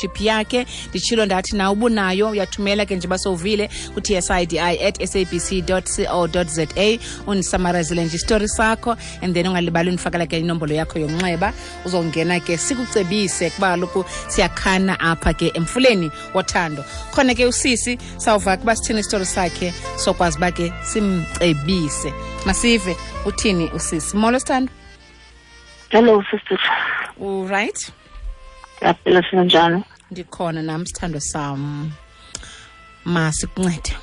Chip yakhe. Nditshilo ndathi na ubunayo uyathumela ke nje basovile ku-tsidi@sabc co za, undisamarazile nje isitori sakho, and then ungalibali undifakela ke inombolo yakho yomnxeba, uzongena ke sikucebise, kuba kaloku siyakhana apha ke emfuleni wothando. Khona ke usisi sawuva kuba sithini isitori sakhe, sokwazi uba ke simcebise. Masive uthini usisi. Molo, sithando. Hello, sister. Uright? Ndiyaphila, sinjani? Ndikhona nam, sithando sam. Masikuncede.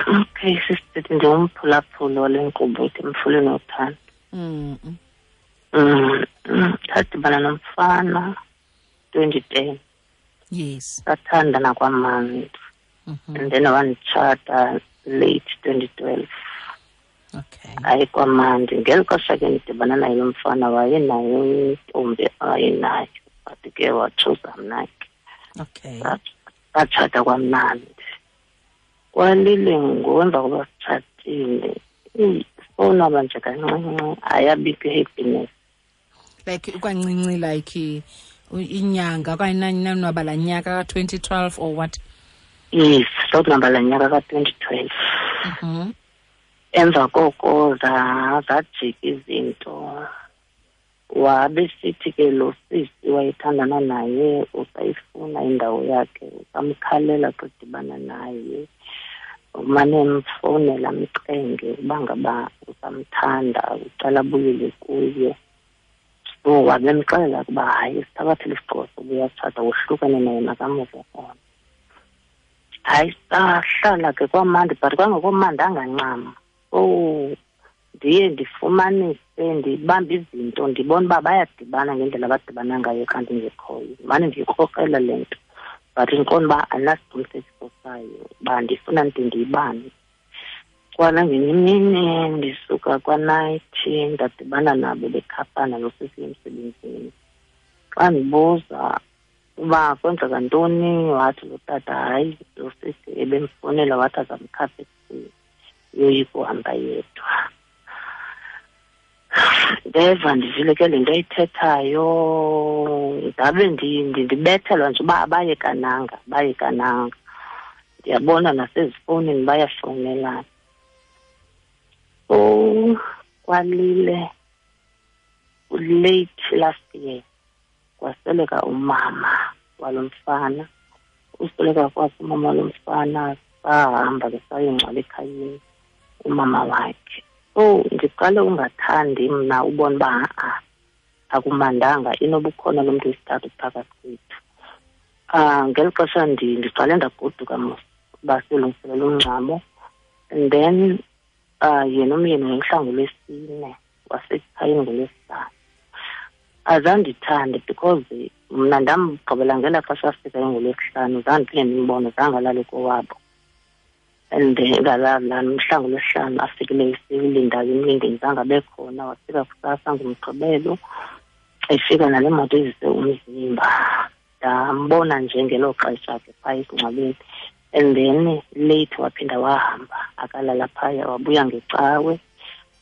Okay, sister, ndingumphulaphuli wale nkqubo ithi Mfuleni Wothando. Ndadibana nomfana 2010. Sathandana kwamandi. And then wanditshata late 2012. Hayi, kwamandi. Ngeli xesha ke ndidibana naye lo mfana, wayenayo intombi awayenayo, but ke watshuza mna ke. Satshata kwamnandi. Kwalile ngoku, emva koba sitshatile, sonwaba nje kancinci, ayabikho i-happiness. Like kwancinci, like inyanga okanye nanwaba laa nyaka ka-2012 or what? Yes, sonwaba laa nyaka ka-2012. Emva koko zajika izinto. Wabe sithi ke lo sisi wayethandana naye usayifuna indawo yakhe, usamkhalela xa edibana naye, umane emfowunela amcenge uba ngaba usamthanda, ucela abuyele kuye. So wabe emxelela ukuba hayi, sithabathele isigqibo sokuba uyatshata, wohlukane naye, makamove on. Hayi, sahlala ke kwamandi, but kwangekomandanga ncam. Oh, ndiye ndifumanise, ndibambe izinto, ndibona uba bayadibana ngendlela abadibana ngayo xa ndingekhoyo. Mane ndiyikrokrela le nto, but ndiqonda uba andinasiqinisekiso sayo uba ndifuna ndide ndiyibambe. Kwanangenye imini ndisuka kwanayithi, ndadibana nabo bekhaphana nosisi emsebenzini. Xa ndibuza uba kwenzeka ntoni, wathi lo tata hayi, lo sisi ebemfowunela, wathi azamkhapha ekuseni, uyoyika uhamba yedwa. Ndeva ndivile ke le nto ayithethayo, ndabe ndibethelwa nje uba abayekananga, abayekananga. Ndiyabona nasezifowunini bayafowunelana. So kwalile late last year kwasweleka umama walo mfana. Usweleka kwakhe umama walo mfana, sahamba ke sayongcwaba ekhayeni umama wakhe. So ndiqale ungathandi mna ubona uba ha-a, akumandanga, inoba ukhona lo mntu wesithathu phakathi kwethu. Ngeli xesha ndiqale ndagoduka mos uba siyolungiselela umngcwabo, and then yena umyeni wayemhla ngoLwesine, wasekhayeni ngoLwesihlanu. Azandithande because mna ndamgqibela ngelaa xesha afikayo ngoLwesihlanu, zange ndiphinde ndimbone, zange alale kowabo. And ngalaa mhla ngoLwesihlanu afikileyo silindayo emlindeni, zange abe khona. Wafika kusasa ngoMgqibelo, efika nale moto izise umzimba. Ndambona nje ngelo xesha ke phaa esingcwabeni, and then late waphinda wahamba, akalala phaya, wabuya ngeCawe.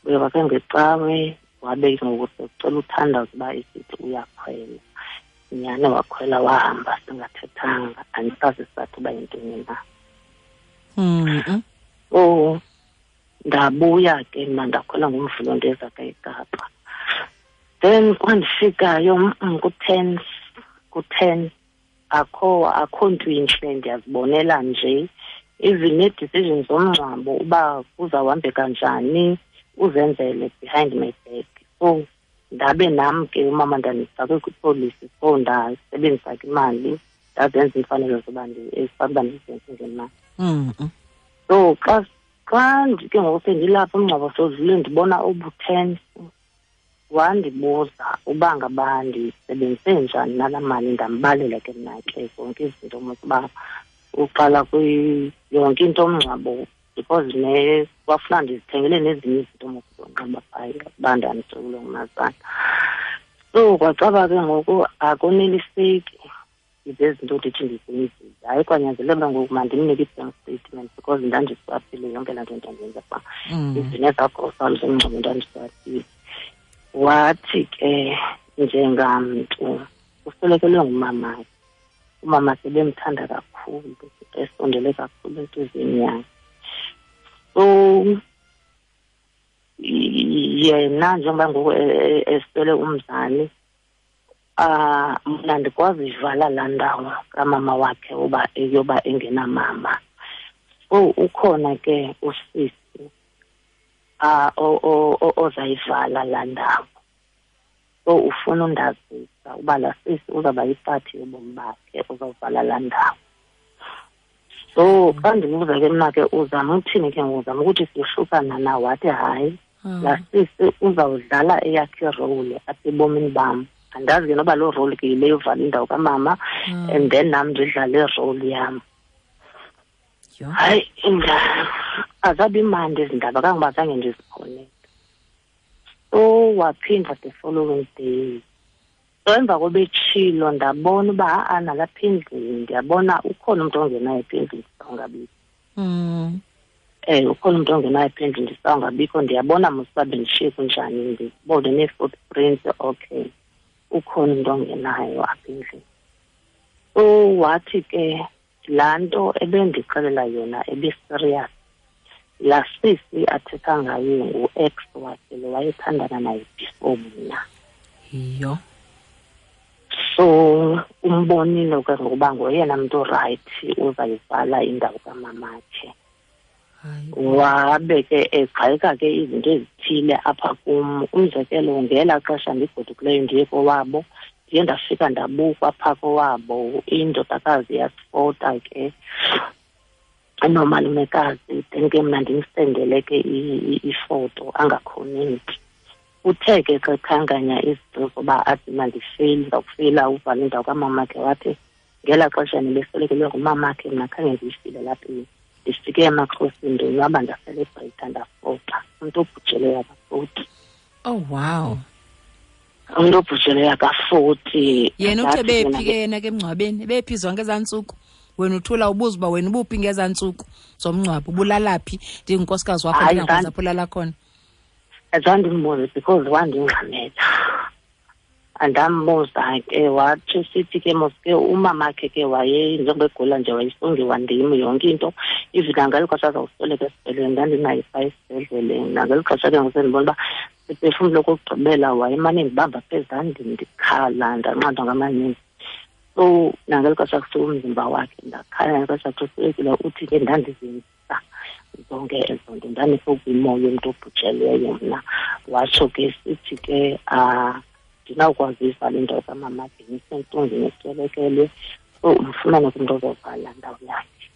Buya kwakhe ngeCawe, wabe ke ngoku sekucela uthandaza uba esithi uyakhwela. Nyhani wakhwela wahamba singathethanga, andisazi isizathu uba yintoni na. Oh, ndabuya ke mna, ndakhwela ngoMvulo, ndeza ke eKapa. Then kwandifikayo ku-10, ku-10, akho nto intle, ndiyazibonela nje. Even nee-decisions zomngcwabo uba kuzawuhambeka njani, uzenzele behind my back. So ndabe nam ke umama ndandifakwe kwipolisi, so ndasebenzisa ke imali, ndazenza iimfanelo zoba ezifana uba ndizenze ngemali. So xa ke ngoku sendilapha, umngcwabo sodlule, ndibona obu-tense, wandibuza uba ngaba ndisebenzise njani nalaa mali. Ndambalela ke mna ke zonke izinto mos uba uqala yonke into omngcwabo, because ne kwafuna ndizithengele nezinye izinto mos zonxiba phaya uba ndanditsokile ngumazana. So kwacaba ke ngoku akoneliseki izezinto ndithi ndizenzile. Hayi, kwanyanzeleka uba ngoku mandimnike i-bank statement, because ndandiswaphile yonke laa nto ndandiyenza phaa. Izinto nezagrosari zomngcwabo ndandiswaphile. Wathi ke njengamntu Uswelekelwe ngumamakhe. Umamakhe bemthanda kakhulu, esondele kakhulu entliziyweni yakhe. So yena njengoba ngoku eswele umzali, mna ndikwazi ivala laa ndawo kamama wakhe uba eyoba engenamama. So ukhona ke usisi ozayivala laa ndawo. So ufuna undazisa uba laa sisi uzawuba yipati yobomi bakhe, uzawuvala laa ndawo. So xa ndimbuza ke mna ke uzama uthini ke ngoku, uzama ukuthi siyohlukana na, wathi hayi, laa sisi uzawudlala eyakhe irole apha ebomini bam. Andazi ke noba loo role ke yile yovala indawo kamama, and then nam ndidlale irole yam. Hayi, azabi mandi ezi ndaba kangoba zange ndizikhonele. So waphinda the following day. So emva kobetshilo ndabona uba ha-a nalapha endlini ndiyabona ukhona umntu ongenayo apha endlini ndisawungabikho. Ukhona umntu ongenayo apha endlini ndisawungabikho, ndiyabona mos uba bendishiye kunjani, ndibone nee-footprints, okay, ukhona umntu ongenayo apha endlini. So wathi ke laa nto ebendixelela yona ebiserious. Laa sisi athetha ngaye ngu-ex wakhe lo wayethandana naye before mna. Yho. So umbonile ke ngokuba ngoyena mntu rayithi uzayivala indawo kamamakhe. Wabe ke egxeka ke izinto ezithile apha kum. Umzekelo, ngelaa xesha ndigodukileyo ndiye kowabo, ndiye ndafika ndabukwa phaa kowabo, indodakazi yasifota ke nomalumekazi, then ke mna ndimsendele ke ifoto angakhonenti. Uthe ke xa ekhankanya izinto zoba athi mandifeyile, ndizawufeyila uvala indawo kamamakhe, wathi ngelaa xesha nibeswelekelwe ngumamakhe mna khange ndiyifile lapha endlini. Ndifike emaXhoseni ndonwaba, ndaselebreyitha, ndafota. Umntu obhujelweyo akafoti. Oh, wow. Umntu obhujelweyo akafoti. Yena uthe bephi ke yena ke emngcwabeni? Bephi zonke ezaa ntsuku? Wena uthula ubuza uba wena ubuphi ngezaa ntsuku zomngcwabo, ubulala phi? Ndingunkosikazi wakho, ndingakwazi apho ulala khona. Azange ndimbuze because wandingxamela. Andambuza ke, wathi sithi ke mos ke umamakhe ke waye njengoba egula nje wayesongiwa ndim yonke into. Even nangeli xesha azawusweleka esibhedlele ndandinaye phaa esibhedlele. Nangeli xesha ke ngoku sendibona uba siphefumlo okokugqibela wayemane ndibamba apha ezandleni ndikhala, ndanqandwa ngamaninzi. So nangeli xesha kusuka umzimba wakhe ndakhala, nangeli xesha kuswelekile uthi ke ndandizenzisa zonke ezo nto, ndandisokuyimoya yomntu obhujelweyo mna. Watsho ke sithi ke ndinawukwazi uyivala indawo kamamakhe, ndisentlungwini eswelekelwe, so umfumane kumntu ozovala ndawo yakhe.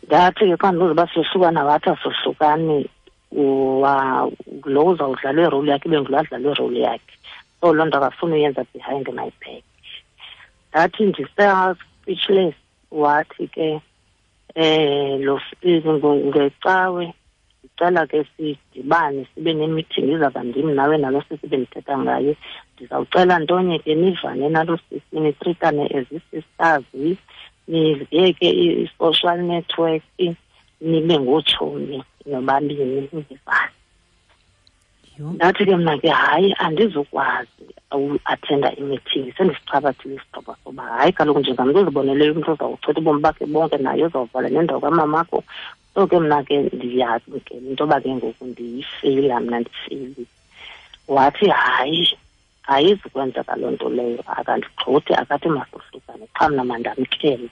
Ndathi ke xa ndibuza uba siyohlukana, wathi asohlukani, lo uzawudlala irole yakhe ibe ngulo adlala irole yakhe. So loo nto akafuni uyenza behind my back. Ndathi ndisa-speechless, wathi ke lo ngecawe ndicela ke sidibane sibe ne-meeting, izawuba ndim nawe nalo sisi bendithetha ngaye. Ndizawucela ntonye ke nivane nalo sisi, nitritane as ii-sisters, niziyeke i-social network, nibe ngootshomi nobabini nivane. Ndathi ke mna ke hayi, andizukwazi uathenda i-meeting, sendisichabathile isigqibo soba hayi kaloku njengamntu oziboneleyo umntu ozawuchitha ubomi bakhe bonke naye uzawuvala nendawo kamamakho. So ke mna ke ndiyazi ke into yoba ke ngoku ndiyifeyila mna, ndifeyilile. Wathi hayi, ayizukwenzeka loo nto leyo, akandigxothi, akathi masohlukane, qha mna mandamkele.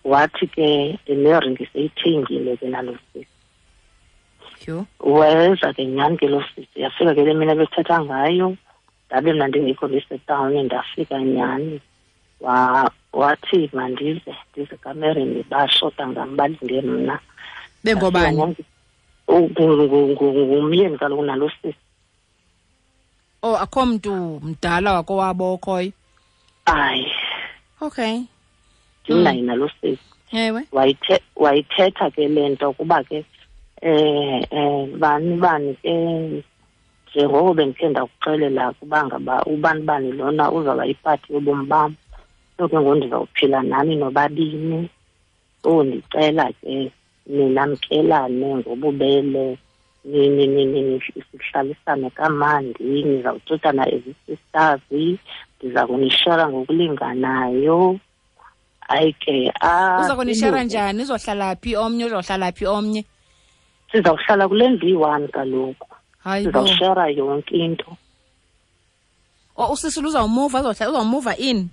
Wathi ke neringi seyithengile ke nalo sisi. Weza ke nyhani ke loo sisi, yafika ke le mini ebethetha ngayo, ndabe mna ndingekho ndisetawuni, ndafika nyhani. Wathi mandize, ndize kamereni, bashota ngam, balinde mna. Bengobani? Ngumyeni kaloku nalo sisi. Oh, akho mntu mdala wakowabo okhoyo? Hayi. Okay. Ndinaye nalo sisi. Ewe. Wayithetha ke le nto kuba ke bani bani ke njengoko bendikhe ndakuxelela kuba ngaba ubani bani lona uzawuba yipati yobomi bam. So ke ngoku ndizawuphila nani nobabini. So ndicela ke ninamkelane ngobubele, sihlalisane kamandi, nizawutshotana as sisters, Ndiza kunishara ngokulinganayo. Hayi ke, uza kunishara njani? Uzohlala phi omnye, uzohlala phi omnye? Sizawuhlala kule ndlu iyi-one kaloku. Sizawushara yonke into. O, usisi uzawumuva, uzawumuva in?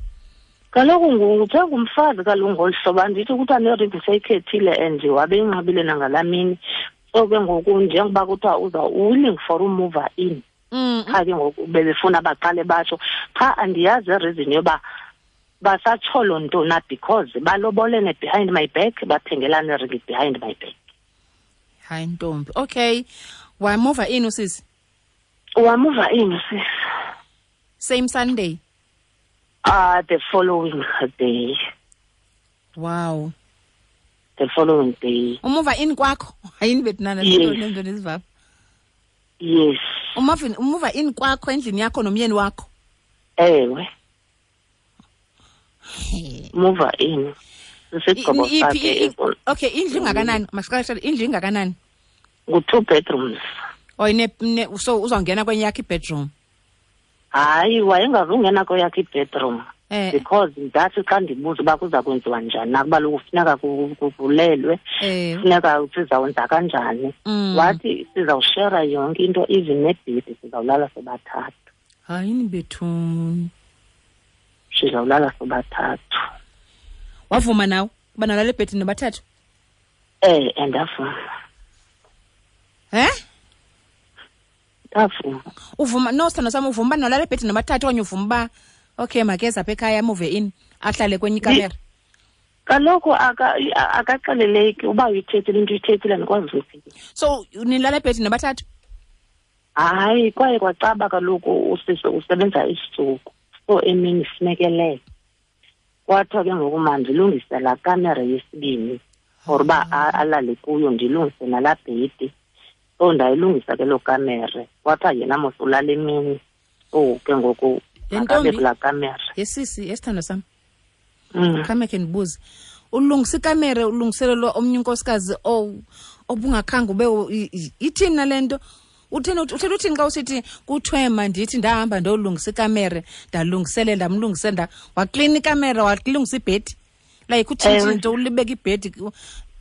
Kaloku njengomfazi kaloku ngolu hlobo, andithi kuthiwa neringi seyikhethile and wabe inqabile nangalaa mini. So ke ngoku njengoba kuthiwa uza willing for umuva in. Qha ke ngoku bebefuna baqale batsho. Qha andiyazi ireason yoba basatsholo ntona, because balobolene behind my back, bathengelane ringi behind my back. Hayi ntombi. Okay. Wamuva in usisi? Wamuva in usisi. Same Sunday? The following day. Wow. The following day. Umuva in kwakho? Hayini bethu nto nezivapha. Yes. Umuva in kwakho endlini yakho nomyeni wakho? Ewe. Muva in. Isigqibo sakhe. Okay, indlu ingakanani? Masiqale, indlu ingakanani? Ngu-2 bedrooms. Oh, so uzawungena kwenye yakhe ibedroom? Hayi, wayengazungena kweyakhe ibedroom. Because ndathi xa ndibuza uba kuza kwenziwa njani, nakuba lokhu kufuneka kuvulelwe, kufuneka sizawenza kanjani. Wathi sizawushera yonke into, even nebhedi sizawulala sobathathu. Hayini bethu. Sizawulala sobathathu. Wavuma nawe uba nalala ebhedini nobathathu? Andavuma. Ndavuma. Uvuma no sithando sami, uvuma uba nolala ebhedini nobathathu okanye uvuma uba okay makeze apha ekhaya amuve in ahlale kwenye ikamera? Kaloku akaxeleleki uba uyithethile into uyithethile, andikwazi uyiphikisa. So nilala ebhedini nobathathu? Hayi, kwaye kwacaba kaloku usisi usebenza isitsuku, so emini sinekelele. Kwathiwa ke ngoku mandilungise laa kamera yesibini for uba alale kuyo, ndilungise nalaa bhedi. So ndayilungisa ke loo kamera. Kwathiwa yena mos ulala emini, so ke ngoku akabe kulaa kamera. Yesisi, yesithando sam. Khame khe ndibuze. Ulungisa ikamera ulungiselelwa omnye unkosikazi obungakhange ube ithini nale nto? Uthini uthini xa usithi kuthiwe mandithi ndahamba ndolungisa ikamera, ndalungiselela, ndamlungisela, waklina ikamera, walungisa ibhedi. Like utshintshe into, ulibeka ibhedi,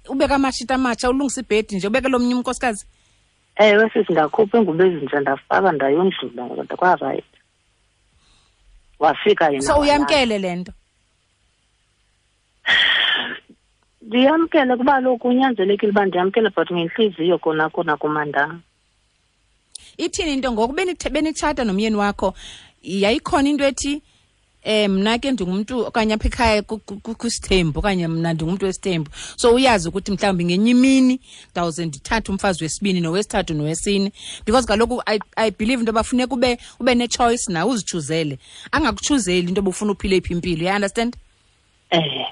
ubeka amashiti amatsha, ulungisa ibhedi nje, ubeke lomnye unkosikazi. Ewe sisi, ndakhupha ingubo ezintsha ndafaka ndayondlula kodwa kwarayithi. Wafika yena. So uyamkele le nto? Ndiyamkele kuba lokhu kunyanzelekile uba ndiyamkele, but ngentliziyo kona kona kumandanga. Ithini into ngoku benitshata nomyeni wakho, yayikhona into ethi mna ke ndingumntu okanye apha ekhaya kwisithembu okanye mna ndingumntu wesithembu, so uyazi ukuthi mhlawumbi ngenye imini ndawuze ndithathe umfazi wesibini nowesithathu nowesine, because kaloku I believe into yoba funeka ube ne-choice nawe uzichuzele, angakutshuzeli into yoba ufuna uphile iphi impilo, you understand?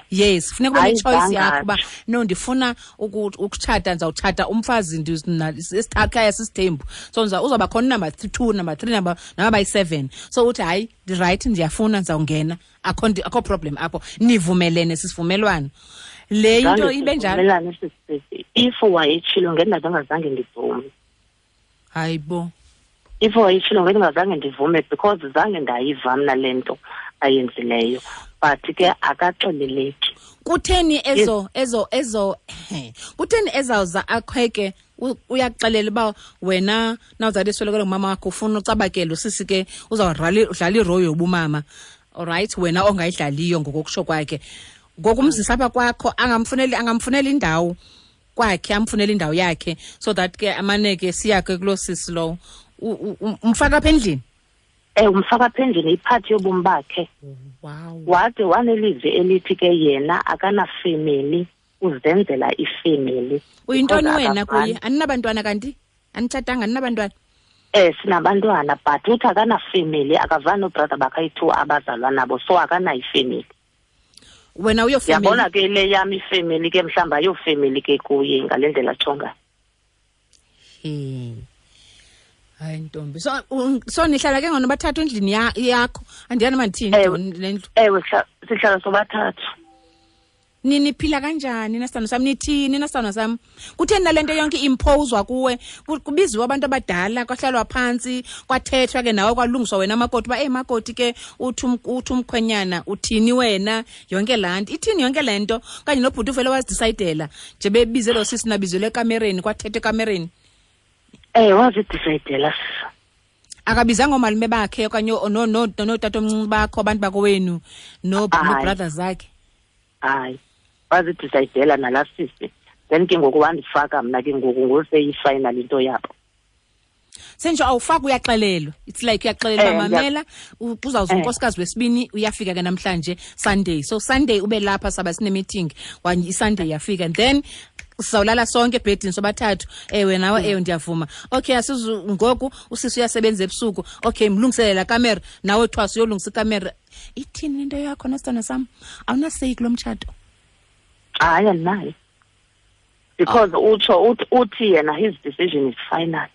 Yes, funeka ube ne-choice yakho uba no ndifuna ukutshata, ndizawutshata umfazi esikhaya sisithembu, so uzawuba khona number 2, number 3, number 7. So uthi hayi ndirayithi, ndiyafuna, ndizawungena, akho problem apho, nivumelene sisivumelwano. Le into ibe njalo. If wayetshilo ngendingazange ndivume. Hayi bo. If wayetshilo ngendingazange ndivume because zange ndayiva mna le nto ayenzileyo. But ke akaxeleleki. Kutheni kutheni ezawuza akhweke uyakuxelela uba wena nawuzali eswelekelwe ngumama wakho ufuna ucabakele usisi ke uzawudlala irole yobumama, alright, wena ongayidlaliyo ngokokusho kwakhe. Ngokumzisa apha kwakho angamfuneli indawo kwakhe, amfunele indawo yakhe so that ke amane ke siyakhe kuloo sisi lowo. Umfaka apha endlini? Umfaka apha endlini, iphathi yobomi bakhe. Wow. Wade wanelizwi elithi ke yena akanafemeli, uzenzela ifemeli. Uyintoni wena kuye? Aninabantwana kanti? Anitshatanga, aninabantwana? Sinabantwana, but uthi akanafemeli, akavani noobrother bakhe ayi-2 abazalwa nabo, so akanayo ifemeli. Wena uyofemeli? Yabona ke le yam ifemeli ke mhlawumbi ayofemeli ke kuye ngale ndlela atsho ngayo. Hayi ntombi. So nihlala ke ngono bathathu endlini yakho. Andiyani mandithini le ndlu. Ewe, sihlala sobathathu. Niniphila kanjani nasithando sam? Nithini nasithando sam? Kutheni nale nto yonke imphozwa kuwe? Kubiziwe abantu abadala, kwahlalwa phantsi, kwathethwa ke nawe, kwalungiswa wena makoti uba, eyi makoti ke uthi umkhwenyana uthini wena, yonke laa nto. Ithini yonke le nto? Okanye nobhuti uvele wazidisayidela nje bebize lo sisi nabizelwe ekamereni, kwathethwa ekamereni. Wazidisayidela. Akabizanga oomalume bakhe okanye nootatomncinci bakho, abantu bakowenu, no-brothers zakhe? Hayi, wazidisayidela nalaa sisi. Then ke ngoku wandifaka mna ke ngoku, ngoseyi-final into yabo. Sentsho awufaki, uyaxelelwa. It's like uyaxelelwa, mamela, uzawuza unkosikazi wesibini, uyafika ke namhlanje Sunday. So Sunday ube lapha, saba sine-meeting, iSunday yafika. And then sizawulala sonke ebhedini sobathathu. Ewe nawe, ewe ndiyavuma. Okay, asizu ngoku usisi uyasebenza ebusuku. Okay, mlungiselela kamera, nawe thwasa uyolungisa ikamera. Ithini into yakho nesithando sam? Awunaseyi kulo mtshato? Hayi, andinayo. Because utsho uthi yena his decision is final.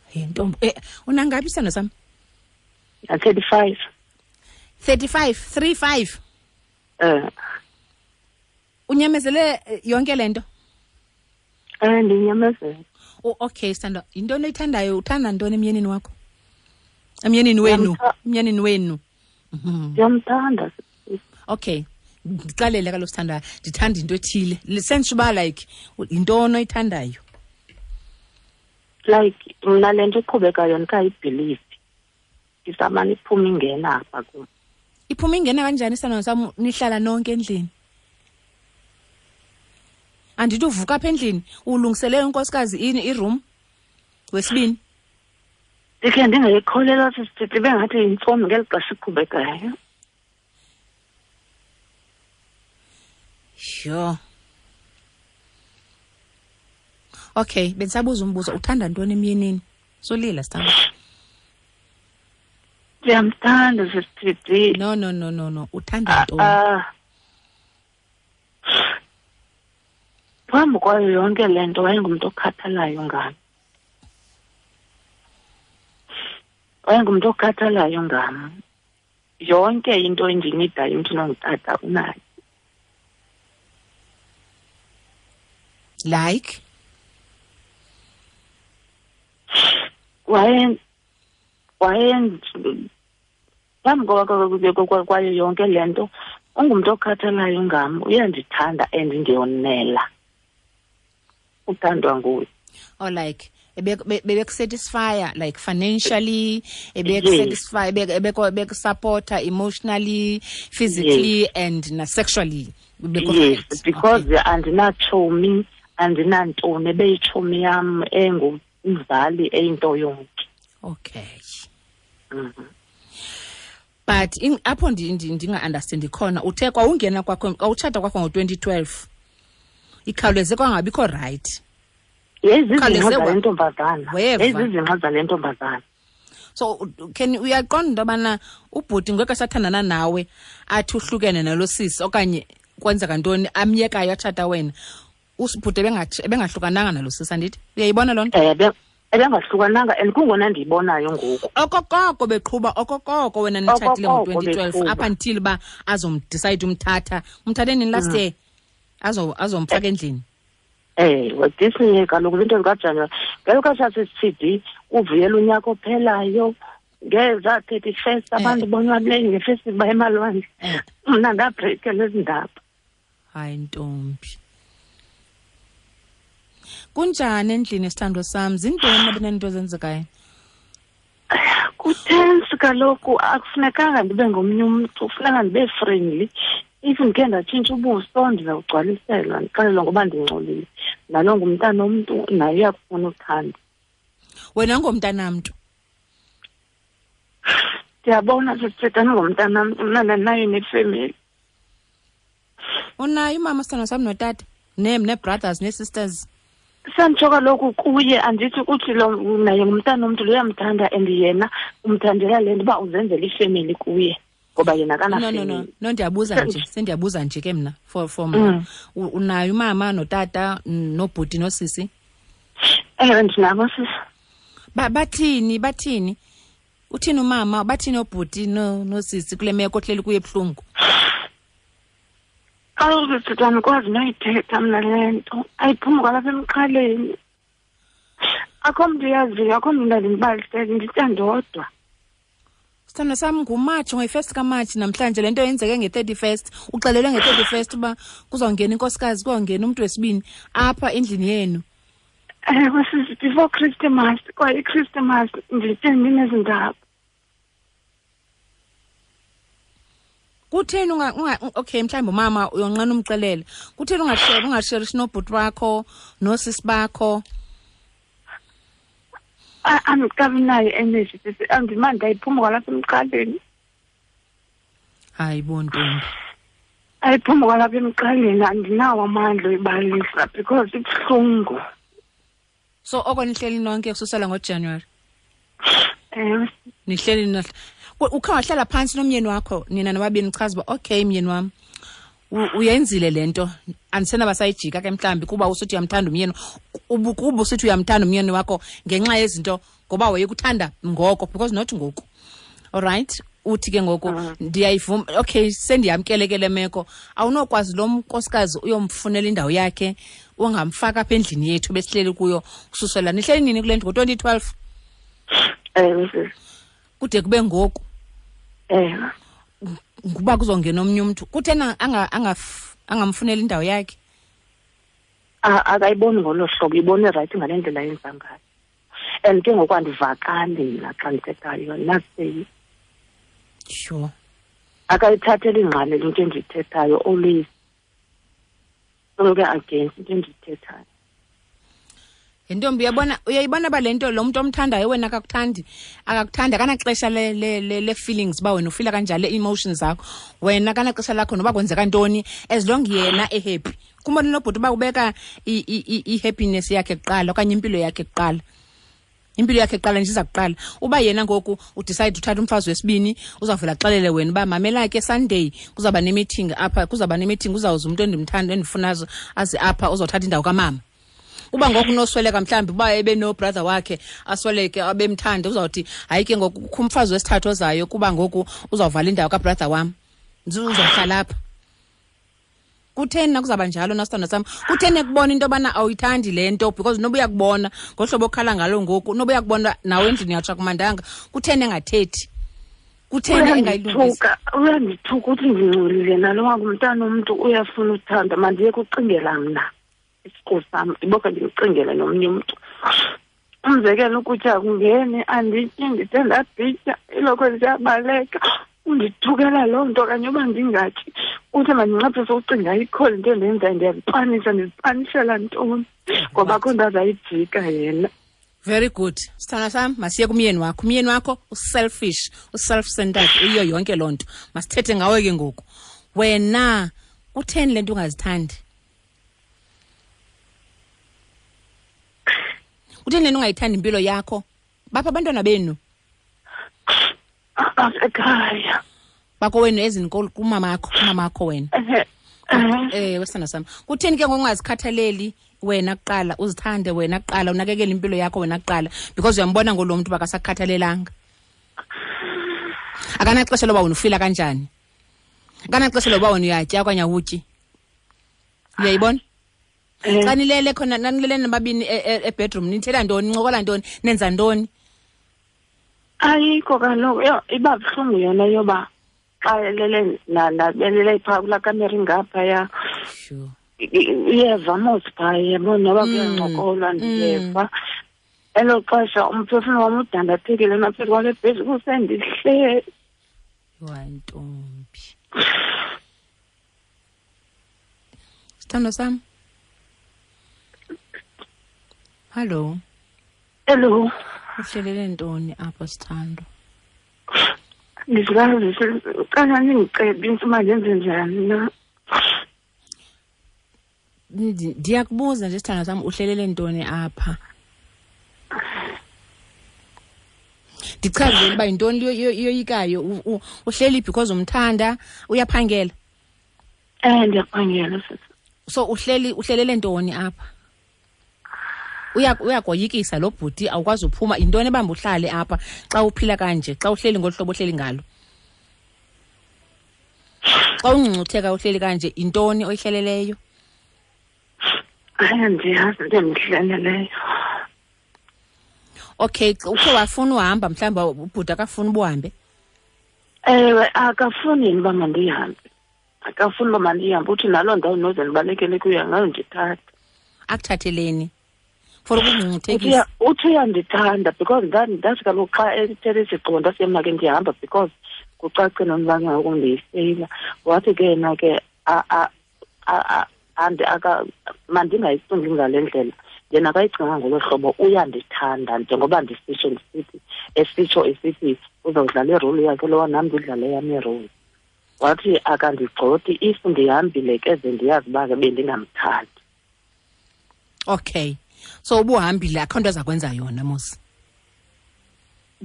Hey ntombi, unangaphi isithando sam? 35. 35, 35. Unyamezele yonke le nto? Ndinyamezele. Oh, okay, Sithando. Yintoni oyithandayo? Uthanda ntoni emyenini wakho? Emyenini wenu. Emyenini wenu. Ndiyamthanda. Okay. Ndixelele kaloku Sithando, ndithanda into ethile. Sentsho uba like yintoni oyithandayo? Like mna le nto iqhubekayo ndikayibhilivi. Isamane iphuma ingena apha kum. Iphuma ingena kanjani Sithando sam nihlala nonke endlini? Andithi uvuka apha endlini ulungisele unkosikazi iroom wesibini. Ndikhe ndingayikholelwa sisithi bengathi yintsomi ngeli xesha iqhubekayo. Sure. Okay, bendisabuza umbuzo, uthanda ntoni emyenini? Solila sithando. Ndiyamthanda sisithi. No no no no no, uthanda ntoni? Phambi kwayo yonke le nto wayengumntu okhathalayo ngam. Wayengumntu okhathalayo ngam. Yonke into endiyinidayo umntu nongutata unayo. Like? Waye phambi kwayo yonke le nto ungumntu okhathalayo ngam, uyandithanda and ndiyonela. Uthandwa nguye. Oh, like bebekusatisfya like financially, ebekusatisfy, bekusupporta emotionally, physically, yes, and sexually. Yes, because andinatshomi, andinantoni, ebeyitshomi yam engumzali eyinto yonke. Okay. But apho ndinga-understandi khona, uthe kwawungena kwakho, kwawutshata kwakho ngo-2012, ikhawuleze kwangabikho right. Yezizinqa zale ntombazana. Yezizinqa zale ntombazana. So can uyaqonda into yobana ubhuti ngeke esathandana nawe athi uhlukene nalo sisi okanye kwenzeka ntoni amyekayo atshata wena, usibhuti ebengahlukananga nalo sisi, andithi? Uyayibona loo nto? Ebengahlukananga and kungona ndiyibonayo ngoku. Okokoko beqhuba, okokoko wena nitshatile ngo-2012 up until uba azomdecide umthatha. Umthathe nini last year? Azomfaka endlini. This year kaloku into zikaJanuwari. Ngelo xesha sisithi uvuyela unyaka ophelayo ngeza 31st abantu bonwabile ngefestival emalwandle. Mna ndabreakela ezi ndaba. Hayi ntombi. Kunjani endlini sithando sam? Zintoni abenento ezenzekayo? Kutense kaloku, akufunekanga ndibe ngomnye umntu, kufuneka ndibe friendly. If ndikhe ndatshintsha ubuso ndizawugcwaliselwa, ndixelelwa ngoba ndingcolile. Nalo ngumntana omntu, naye uyakufuna uthando. Wena ngomntanamntu? Ndiyabona sisithetha ngomntanamntu, mna ndinayo nefemeli. Unayo umama sithando sam notata? Nee-brothers, nee-sisters? Sanditsho kaloku kuye, andithi uthi lo naye ngumntana omntu, lo uyamthanda and yena umthandela le nto uba uzenzela ifemeli kuye. Ngoba yena akana. No, ndiyabuza nje, sendiyabuza nje ke mna for mna. Unayo umama notata nobhuti nosisi? Ewe, ndinabo sisi. Bathini? Uthini umama, bathini obhuti nosisi kule meko ohleli kuye ebuhlungu? Kaloku sisi andikwazi noyithetha mna le nto, ayiphumi kwalapha emqaleni. Akho mntu uyaziyo, akho mntu ndandindibalisele, nditya ndodwa. Sithandwa sam, nguMatshi, ngoyi-first kaMatshi namhlanje. Le nto yenzeke nge-31, uxelelwe nge-31 uba kuzawungena inkosikazi, kuzawungena umntu wesibini apha endlini yenu. Ewe sisi, before Christmas, kwaye iChristmas nditye ndinezi ndaba. Kutheni unga, unga okay, mhlawumbi umama uyonqena umxelele. Kutheni ungasheri, ungasherishi nobhuti wakho noosisi bakho? Andikabi nayo energy sisi, andimandi ayiphumi kwalapha emqaleni. Hayi bo ntombi. Ayiphumi kwalapha emqaleni, andinawo amandla oyibalisa because ibuhlungu. So oko nihleli nonke kususela ngoJanuary? Ewe. Nihleli ukhe wahlala phantsi nomyeni wakho nina nobabini, uchaza uba okay myeni wam, uyenzile le nto, andisenaba sayijika ke mhlawumbi kuba usithi uyamthanda umyeni, kuba usithi uyamthanda umyeni wakho ngenxa yezinto ngoba wayekuthanda ngoko, because not ngoku. All right, uthi ke ngoku ndiyayivuma, okay, sendiyamkele ke le meko. Awunokwazi lo nkosikazi uyomfunela indawo yakhe, ungamfaka apha endlini yethu besihleli kuyo kususela nihleli nini kule ndlu? Ngo-2012? Ewe, sisi. Kude kube ngoku. Ewe. Nguba kuzongena omnye umntu. Kutheni angamfuneli indawo yakhe? Akayiboni ngolo hlobo, ibone rayithi ngale ndlela yenza ngayo. And ke ngoku andivakali mna xa ndithethayo, naseyi. Sure. Akayithatheli ingqalelo into endiyithethayo, always soloko against into endiyithethayo. Ntombi, uyayibona uba le nto lo mntu omthandayo wena akakuthandi, akakuthandi, akanaxesha le feelings uba wena ufila kanjani, le-emotions zakho. Wena akanaxesha lakho noba kwenzeka ntoni, as long yena ehappy. Kumbona nobhuti uba ubeka i-happiness yakhe kuqala okanye impilo yakhe kuqala. Impilo yakhe kuqala nje iza kuqala. Uba yena ngoku udecide uthatha umfazi wesibini, uzawuvela axelele wena uba mamela ke Sunday kuzawuba ne-meeting apha, kuzawuba ne-meeting, uzawuza umntu endimthanda endifuna aze apha uzawuthatha indawo kamama. Uba ngoku unosweleka mhlawumbi uba ebe no-brother wakhe asweleke abemthanda, uzawuthi hayi ke ngoku kukho umfazi wesithathu ozayo kuba ngoku uzawuvala indawo kabrother wam, uzawuhlala apha. Kutheni nakuzawuba njalo na sithandwa sam? Kutheni ekubona into yobana awuyithandi le nto? Because noba uyakubona ngohlobo okhala ngalo ngoku, noba uyakubona nawe endlini yatsho akumandanga, kutheni engathethi? Kutheni engayilungisi? Uyandithuka uthi ndingcolile, nalo ngumntana umntu uyafuna uthanda, mandiye kucingela mna isiqu sam, ndiboke ndimcingele nomnye umntu. Umzekelo, ukutya kungeni, andityi, ndithe ndabhitya, ilokhwe ziyabaleka. Undithukela loo nto okanye uba ndingatyi, uthi mandinciphise ucinga ayikho le nto endiyenzayo, ndiyazipanisa, ndizipanishela ntoni ngoba akho nto azayijika yena. Very good. Sithandwa sam, masiye kumyeni wakho. Umyeni wakho uselfish, uself-centered, uyiyo yonke loo nto. Masithethe ngawe ke ngoku. Wena kutheni le nto ungazithandi? Kutheni le nto ungayithandi impilo yakho? Bapha abantwana benu? Asekhaya. Bakowenu ezini kumamakho, kumamakho wena. Wesithandwa sam, kutheni ke ngoku ungazikhathaleli wena kuqala, uzithande wena kuqala, unakekele impilo yakho wena kuqala? Because uyambona ngolo mntu bakasakhathalelanga. Akanaxesha loba wena ufila kanjani. Akanaxesha loba wena uyatya okanye awutyi. Uyayibona? Xa nilele khona, nanilele nababini ebedroom, nithetha ntoni, nincokola ntoni, nenza ntoni? Ayikho kaloku, yho, iba buhlungu yona yoba xa elele nabelele phaa kulaa kamera ingaphaya. Uyeva mos phaa, yabo, noba kuyancokolwa ndiyeva. Elo xesha umphefumlo wam udandathekile naphezu kwale bhedi kusendihleli. Hayi ntombi. Sithandwa sam. Hello. Hello. Uhlelele ntoni apho sithandwa? Ndizikazi cela ningicebise uba ndenze njani na. Ndiyakubuza nje sithandwa sam, uhlelele ntoni apha? Ndichazele uba yintoni iyoyikayo. Uhleli because umthanda, uyaphangela? Ndiyaphangela sisi. So uhlelele ntoni apha? Uyakoyikisa lo bhuti, awukwazi uphuma. Yintoni ebamba uhlale apha xa uphila kanje, xa uhleli ngolu hlobo ohleli ngalo? Xa ungcungcutheka uhleli kanje, yintoni oyihleleleyo? Hayi, andiyazi into endihleleleyo. Okay, ukhe wafuna uhamba mhlawumbi ubhuti akafuni ubuhambe? Ewe, akafuni yena uba mandihambe. Akafuni uba mandihambe, uthi naloo ndawo noze ndibalekele kuyo angayondithatha. Akuthatheleni? For ukungcungcuthekisa. Uthi uyandithanda because ndathi kaloku xa ethethe isigqibo ndasiye mna ke ndiyahamba because kucace nomba ngoku ndiyifeyila. Wathi ke yena ke mandingayicingi ngale ndlela. Yena akayicinga ngolo hlobo, uyandithanda njengoba ndisitsho ndisithi, esitsho esithi uzawudlala iroli yakhe lowa nam ndidlale yam iroli. Wathi akandigxothi if ndihambile ke ze ndiyazi uba ke bendingamthandi. Okay, so ubuhambile akho nto aza kwenza yona mos.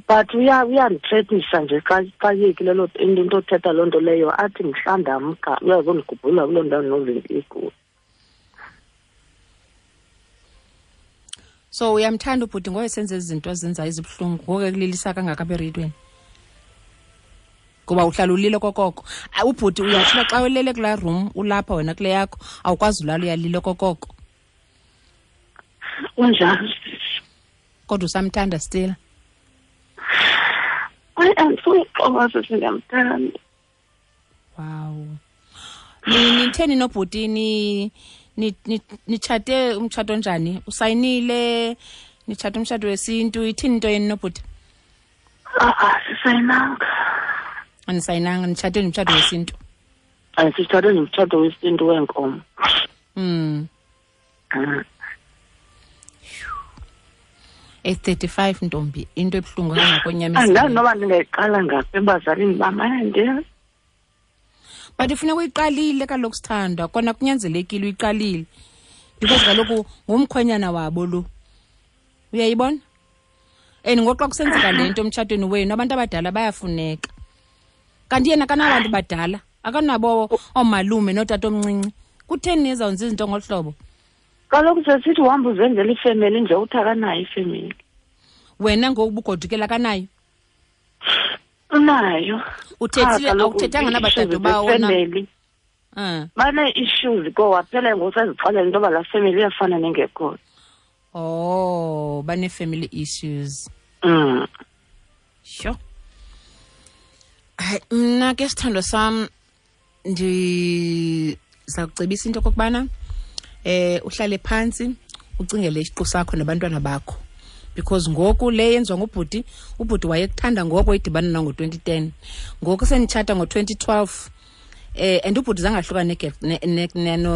But uyandithethisa nje xa yekile loo into othetha loo nto leyo, athi mhla ndamka uyazondigubhula kuloo ndawo nozinto ikuyo. So uyamthanda ubhuti ngoye senze izinto azenzayo ezibuhlungu ngoku ekulilisa kangaka apha ereyidweni? Ngoba uhlala ulile kokoko. Ubhuti uyatsho uba xa ulele kulaa room ulapha wena kule yakho awukwazi ulala, uyalile kokoko. Kunjalo. Kodwa usamthanda still? Hayi, andifuni uxoka sisi, ndiyamthanda. Wow. Nitheni nobhuti, nitshate umtshato onjani? Usayinile? Nitshate umtshato wesintu? Ithini into yenu nobhuti? A-a, sisayinanga. Anisayinanga, nitshate nomtshato wesintu? Sitshate nomtshato wesintu weenkomo. 8:35 ntombi, into ebuhlungu kangakonyamisa. Andazi noba ndingayiqala ngaphi ebazalini bam, andiyazi. But ifuneka uyiqalile kaloku sithandwa, kona kunyanzelekile uyiqalile. Because kaloku ngumkhwenyana wabo lo. Uyayibona? And ngoxa kusenzeka le nto emtshatweni wenu, abantu abadala bayafuneka. Kanti yena akanabantu badala, akanabo oomalume nootatomncinci. Kutheni nizawwenza izinto ngolu hlobo? Kaloku sesithi uhamba uzenzela ifemeli nje, uthi akanayo ifemeli. Wena ngoku ubugodukela akanayo? Unayo. Uthethile, Cha, kaloku awuthethanga ii-issues nabadade bawo na? zefemeli. Banee-issues ko waphela ngoku sezixelela into yoba laa femeli iyafana nengekhoyo. Oh, banee-family issues. Sure. Hayi, mna ke sithandwa sam ndiza kucebisa into okokubana uhlale phantsi ucingele isiqu sakho nabantwana bakho. Because ngoku le yenziwa ngubhuti, ubhuti wayekuthanda ngoko idibana na ngo-2010. Ngoku senitshata ngo-2012. And ubhuti zange ahlukane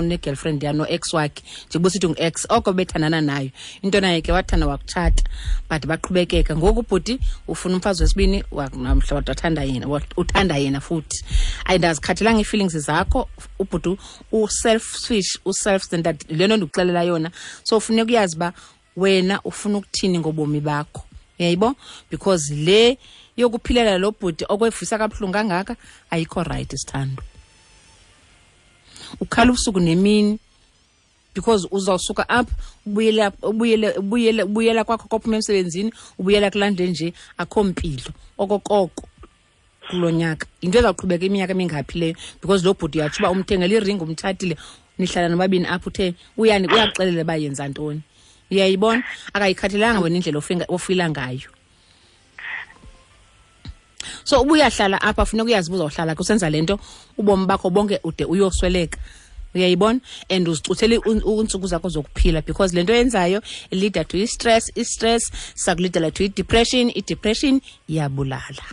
ne-girlfriend ya no-ex wakhe, njengoba usithi ngu-ex oko bethandana nayo. Into naye ke wathanda wakutshata, but baqhubekeka. Ngoku ubhuti ufuna umfazi wesibini, namhla wathanda yena, uthanda yena futhi. Ayindazikhathalanga ii-feelings zakho, ubhuti u-selfish, u-self-centered, le nto ndikuxelela yona. So funeka uyazi uba wena ufuna ukuthini ngobomi bakho. Uyayibo? Because le yokuphilela lo bhuti okwevisa kabuhlungu kangaka ayikho right sithando. Ukhala ubusuku nemini because uzawusuka apha ubuyela kwakho kophuma emsebenzini, ubuyela kulaa ndlu nje akho mpilo okokoko kulo nyaka. Yinto ezawuqhubeka iminyaka emingaphi leyo because lo bhuti uyatsho uba umthengele iringi, umtshatile, nihlala nobabini apha, uthe uyakuxelela uba yenza ntoni. Uyayibona? Akayikhathalelanga wena indlela ofila ngayo. So uba uyahlala apha funeka uyazi uba uzawuhlala kusenza le nto ubomi bakho bonke ude uyosweleka. Uyayibona? And uzicuthele iintsuku zakho zokuphila because le nto yenzayo leader to i-stress, i-stress sakulidela to i-depression, i-depression iyabulala.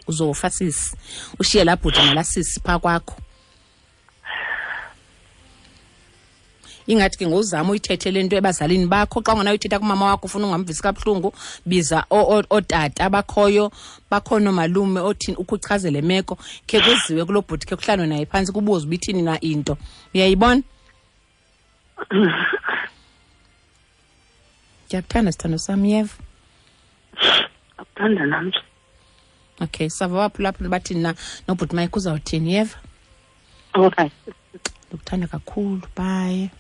Uzofa sisi, ushiye laa bhuti nalaa sisi phaa kwakho. Ingathi ke ngozama uyithethe le nto ebazalini bakho. Xa ungenayo uyithetha kumama wakho ufuna ungamvisi kabuhlungu, biza ootata abakhoyo, bakhona oomalume othini, ukhe uchaze le meko, khe kuziwe kuloo bhuti, khe kuhlalwe naye phantsi kubuzwe uba ithini na into. Uyayibona? Ndiyakuthanda sithando sam, yeva. Akuthanda nam. Okay, sava waphulaphula bathini na nobhuti Mike uzawuthini, yeva? Okay. Ndikuthanda kakhulu, bye.